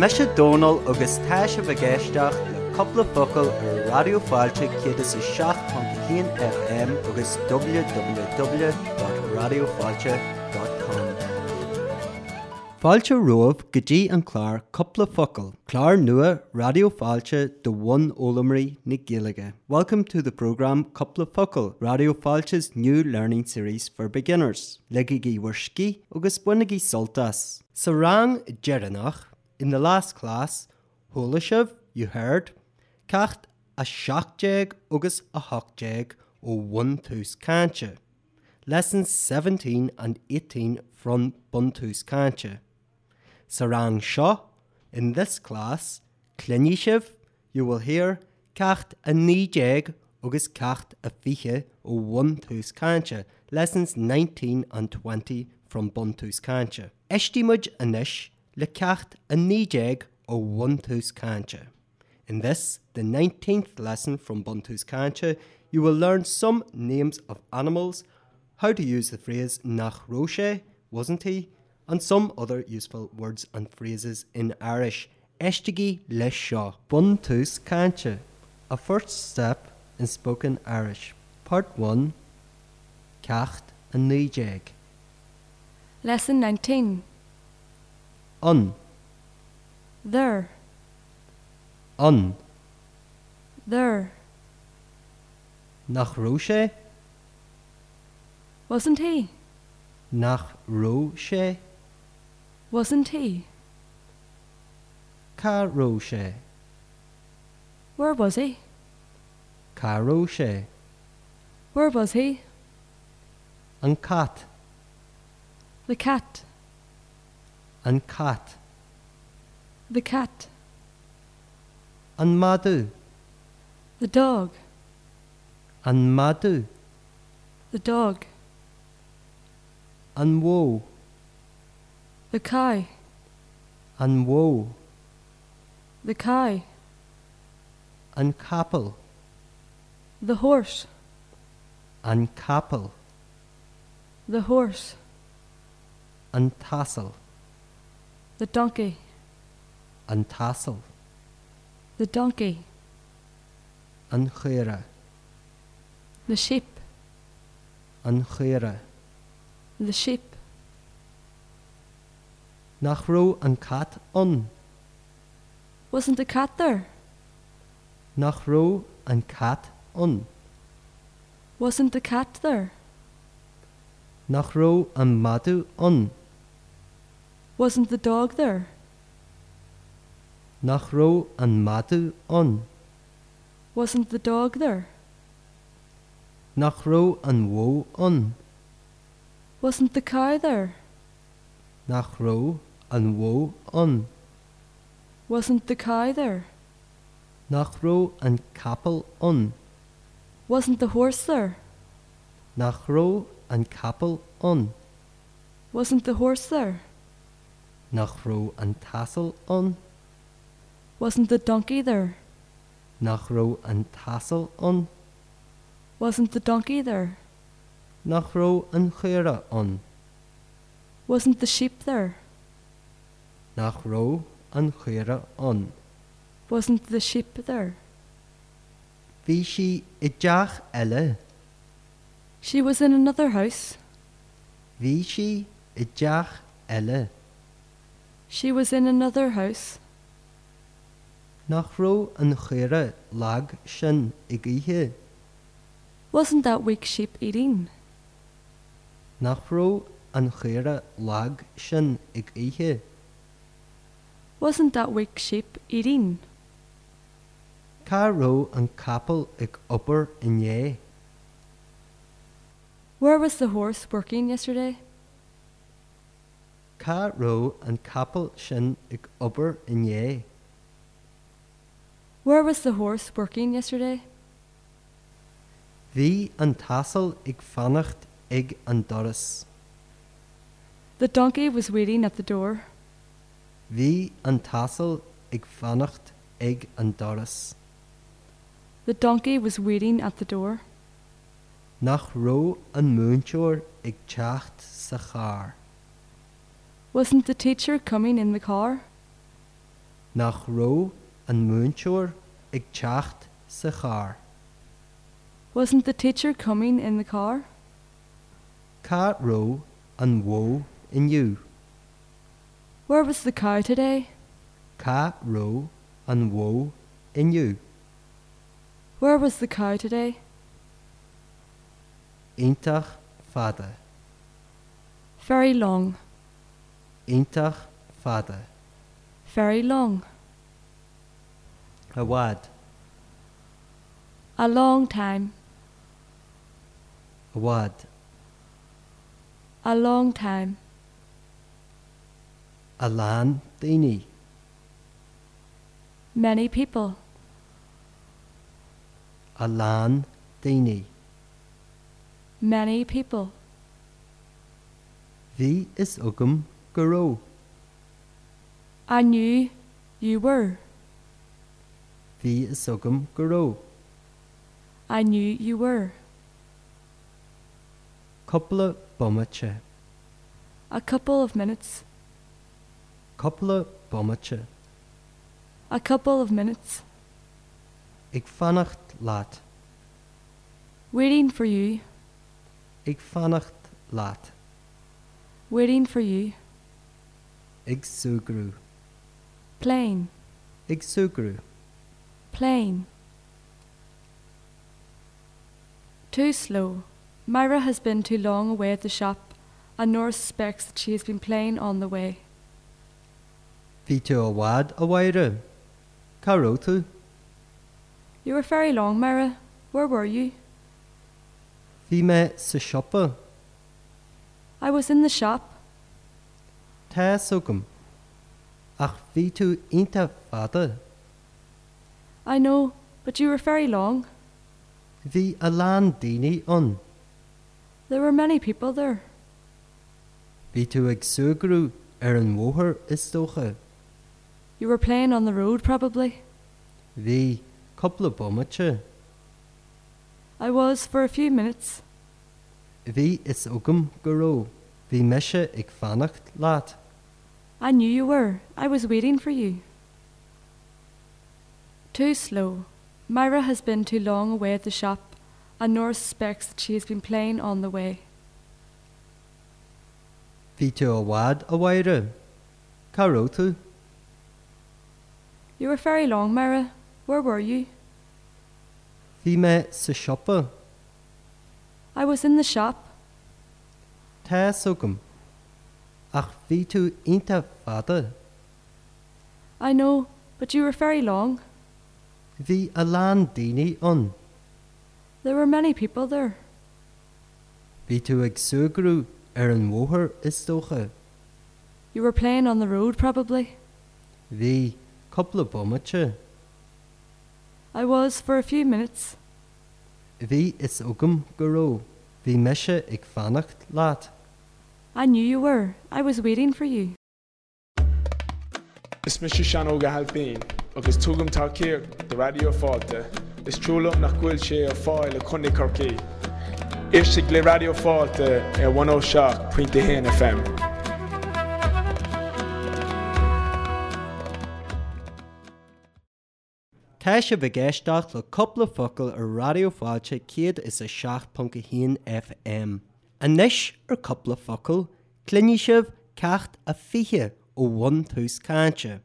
Mise Dónal agus tá sibh ag éisteacht le Cúpla Focal ar Raidió Fáilte 107.1 FM agus www.raidiofáilte.com. Fáilte romhaibh go dtí an clár Cúpla Focal, clár nua Raidió Fáilte do bhunfhoghlaimeoirí na Gaeilge. Welcome to the programme Cúpla Focal, Raidió Fáilte's new learning series for beginners. Ligigí bhur scíth agus bainigí sult as! Sa rang deireanach, in the last class, chuala sibh, you heard, ceacht 17 agus 18 ó Bhuntús Cainte, lessons 17 and 18 from Buntús Cainte. Sa rang seo, in this class, cluinfidh sibh, you will hear, ceacht 19 agus ceacht 20 ó Bhuntús Cainte, lessons 19 and 20 from Buntús Cainte. Éistfidh muid anois le ceacht 19 ó Bhuntús Cainte. In this, the 19th lesson from Buntús Cainte, you will learn some names of animals, how to use the phrase nach raibh sé, wasn't he, and some other useful words and phrases in Irish. Éistigí leis seo. Buntús Cainte, A First Step in Spoken Irish, Part 1, Ceacht 19. Lesson 19. Ann. There. Ann. There. Nach raibh sé? Wasn't he? Nach raibh sé? Wasn't he? Cá raibh sé? Where was he? Cá raibh sé? Where was he? An cat. The cat. An cat. The cat. An madadh. The dog. An madadh. The dog. An bhó. The cow. An bhó. The cow. An capall. The horse. An capall. The horse. An t-asal. The donkey. An t-asal. The donkey. An chaora. The sheep. An chaora. The sheep. Nach raibh an cat ann? Wasn't the cat there? Nach raibh an cat ann? Wasn't the cat there? Nach raibh an madadh ann? Wasn't the dog there? Nach raibh an madadh ann? Wasn't the dog there? Nach raibh an bhó ann? Wasn't the cow there? Nach raibh an bhó ann? Wasn't the cow there? Nach raibh an capall ann? Wasn't the horse there? Nach raibh an capall ann? Wasn't the horse there? Nach raibh an t-asal ann? Wasn't the donkey there? Nach raibh an t-asal ann? Wasn't the donkey there? Nach raibh an chaora ann? Wasn't the sheep there? Nach raibh an chaora ann? Wasn't the sheep there? Bhí sí i dteach eile. She was in another house. Bhí sí i dteach eile. She was in another house. Nach raibh an chaora lag sin ag ithe? Wasn't that weak sheep eating? Nach raibh an chaora lag sin ag ithe? Wasn't that weak sheep eating? Cá raibh an capall ag obair inné? Where was the horse working yesterday? Cá raibh an capall sin ag obair inné? Where was the horse working yesterday? Bhí an t-asal ag fanacht ag an doras. The donkey was waiting at the door. Bhí an t-asal ag fanacht ag an doras. The donkey was waiting at the door. Nach raibh an múinteoir ag teacht sa charr? Wasn't the teacher coming in the car? Nach raibh an múinteoir ag teacht sa charr? Wasn't the teacher coming in the car? Cá raibh an bhó inniu? Where was the cow today? Cá raibh an bhó inniu? Where was the cow today? Iontach fada. Very long. Iontach fada. Very long. I bhfad. A long time. I bhfad. A long time. A lán daoine. Many people. A lán daoine. Many people. Bhí fhios agam go raibh. I knew you were. Bhí fhios agam go raibh. I knew you were. Cúpla bomaite. A couple of minutes. Cúpla bomaite. A couple of minutes. Ag fanacht leat. Waiting for you. Ag fanacht leat. Waiting for you. Ag súgradh. Playing. Ag súgradh. Playing. Too slow. Myra has been too long away at the shop, and Nora suspects that she has been playing on the way. Bhí tú i bhfad, a Mháire. Cá raibh tú? You were very long, Myra. Where were you? Bhí mé sa siopa. I was in the shop. Tá fhios agam. Ach bhí tú iontach fada. I know, but you were very long. Bhí a lán daoine ann. There were many people there. Bhí tú ag súgradh ar an bhóthar, is dócha. You were playing on the road, probably. Bhí, cúpla bomaite. I was for a few minutes. Bhí fhios agam go raibh. Bhí mise ag fanacht leat. I knew you were. I was waiting for you. Too slow. Myra has been too long away at the shop, and Nora suspects that she has been playing on the way. Bhí tú i bhfad, a Mháire. Cá raibh tú? You were very long, Myra. Where were you? Bhí mé sa siopa. I was in the shop. Tá fhios agam. Ach bhí tú iontach fada. I know, but you were very long. Bhí a lán daoine ann. There were many people there. Bhí tú ag súgradh ar an bhóthar, is dócha. You were playing on the road, probably. Bhí, cúpla bomaite. I was for a few minutes. Bhí fhios agam go raibh. Bhí mise ag fanacht leat. I knew you were. I was waiting for you. Is mise Seán Óg Ó hAilpín agus tugaim tacaíocht do Raidió Fáilte. Is trua liom nach bhfuil sé ar fáil i Contae Chorcaí. Éistigh le Raidió Fáilte ar 107.1 FM. Tá sibh ag éisteacht le Cúpla Focal ar Raidió Fáilte 107.1 FM. Anois ar Cúpla Focal, cluinfidh sibh ceacht a 20 ó Bhuntús Cainte.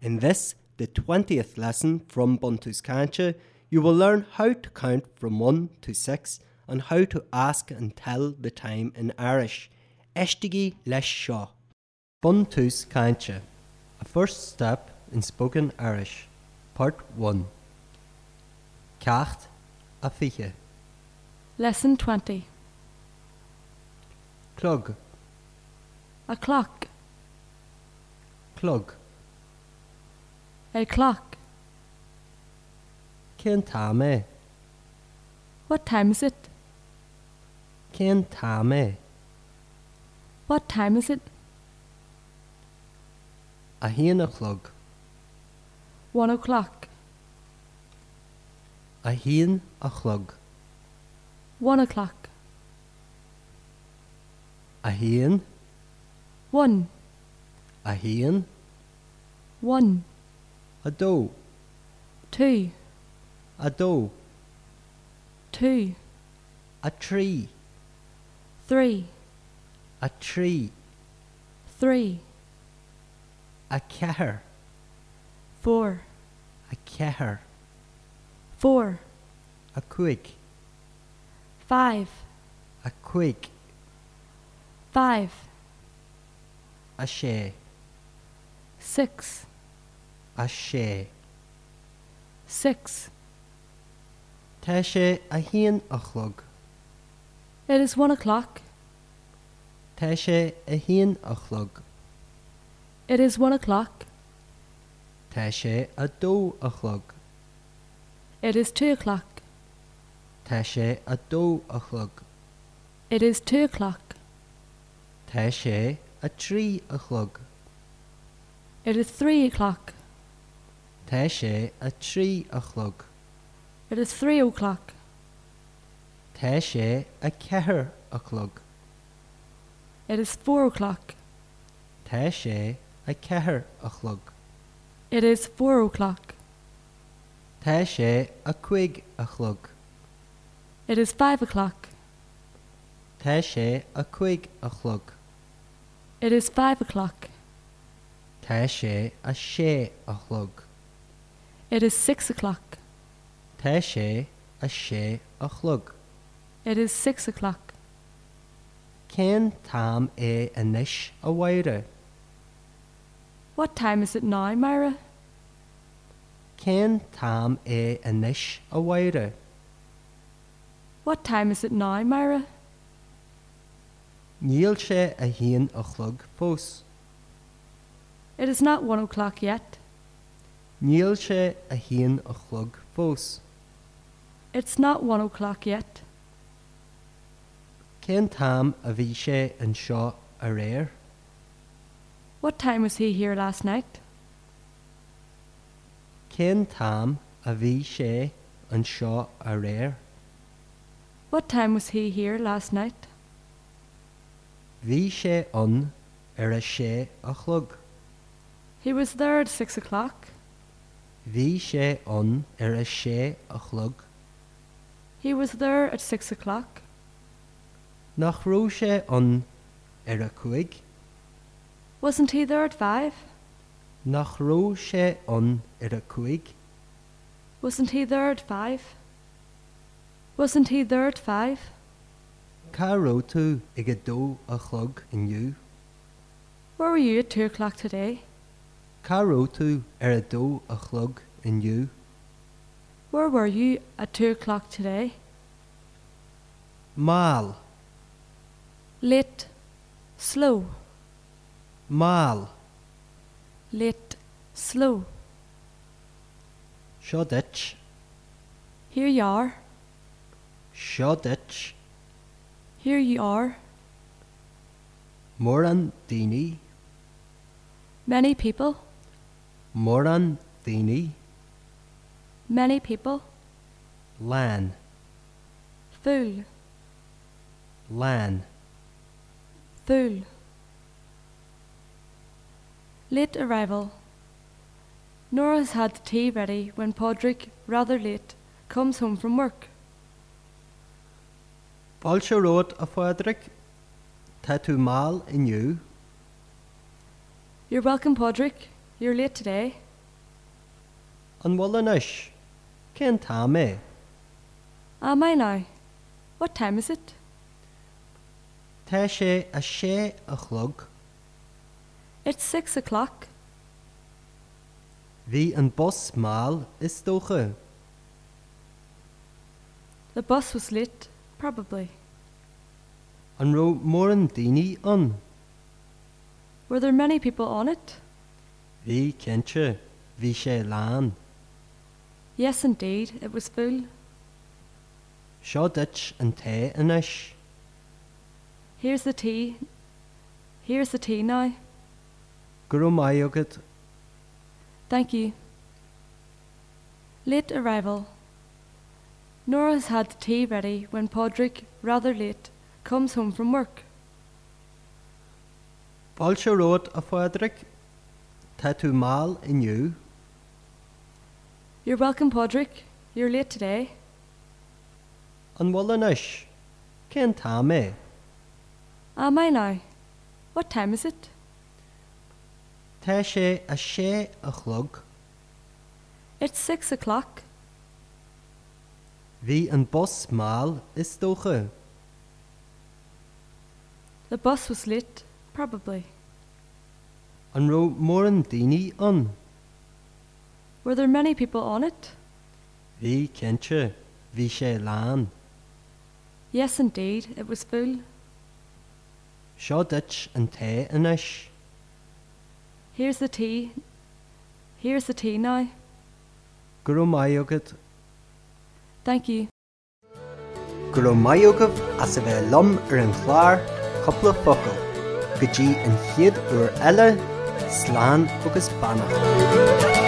In this, the 20th lesson from Buntús Cainte, you will learn how to count from 1 to 6 and how to ask and tell the time in Irish. Éistigí leis seo. Buntús Cainte, A First Step in Spoken Irish, Part 1 Ceacht a 20. Lesson 20. Clog. A clock. Clog. A clock. Cén t-am é? What time is it? Cén t-am é? What time is it? 1 a chlog. 1 o'clock. 1 a chlog. 1 o'clock. 1. 1. 1. 1. 2. 2. 2. 2. 3. 3. 3. 3. 4. 4. 4. 4. 5. 5. 5. 5. 6. 6. 6. 6. Tá sé 1 a chlog. It is 1 o'clock. Tá sé 1 a chlog. It is 1 o'clock. Tá sé 2 a chlog. It is 2 o'clock. Tá sé 2 a chlog. It is 2 o'clock. Tá sé 3 a chlog. It is 3 o'clock. Tá sé 3 a chlog. It is 3 o'clock. Tá sé 4 a chlog. It is 4 o'clock. Tá sé 4 a chlog. It is 4 o'clock. Tá sé 5 a chlog. It is 5 o'clock. Tá sé 5 a chlog. It is 5 o'clock. Tá sé 6 a chlog. It is 6 o'clock. Tá sé 6 a chlog. It is 6 o'clock. Cén t-am é anois, a Mháire? What time is it now, Myra? Cén t-am é anois, a Mháire? What time is it now, Myra? Níl sé 1 a chlog fós. It is not 1 o'clock yet. Níl sé 1 a chlog fós. It's not 1 o'clock yet. Cén t-am a bhí sé anseo aréir? What time was he here last night? Cén t-am a bhí sé anseo aréir? What time was he here last night? Bhí sé ann ar a sé a chlog. He was there at 6 o'clock. Bhí sé ann ar a sé a chlog. He was there at 6 o'clock. Nach raibh sé ann ar a cúig? Wasn't he there at 5? Nach raibh sé ann ar a cúig? Wasn't he there at 5? Wasn't he there at 5? Cá raibh tú ag 2 a chlog inniu? Where were you at 2 o'clock today? Cá raibh tú ar 2 a chlog inniu? Where were you at 2 o'clock today? Mall. Late. Slow. Mall. Late. Slow. Seo duit. Here you are. Seo duit. Here you are. Mórán daoine. Many people. Mórán daoine. Many people. Lán. Full. Lán. Full. Late arrival. Nora has had the tea ready when Padraig, rather late, comes home from work. Fáilte romhat, a Phádraig. Tá tú mall inniu. You're welcome, Padraig. You're late today. An bhfuil anois? Cén t-am é? Am I now? What time is it? Tá sé 6 a chlog. It's 6 o'clock. Bhí an bus mall, is dócha. The bus was late, probably. An raibh mórán daoine ann? Were there many people on it? Bhí, cinnte. Bhí sé lán. Yes, indeed, it was full. Seo duit an tae anois. Here's the tea. Here's the tea now. Go raibh maith agat. Thank you. Late arrival. Nora has had the tea ready when Padraig, rather late, comes home from work. Fáilte romhat, a Phádraig. Tá tú mall inniu. You're welcome, Padraig. You're late today. An bhfuil anois? Cén t-am é? Am I now? What time is it? Tá sé a sé a chlog. It's 6 o'clock. Bhí an bus mall is dócha. The bus was late, probably. An raibh mórán daoine ann? Were there many people on it? Bhí cinnte, bhí sé lán. Yes, indeed, it was full. Seo duit an tae anois. Here's the tea. Here's the tea now. Go raibh maith agat. Thank you. Go raibh maith agaibh as a bheith liom ar an chlár Cúpla Focal. Go dtí an chéad uair eile, slán agus beannacht.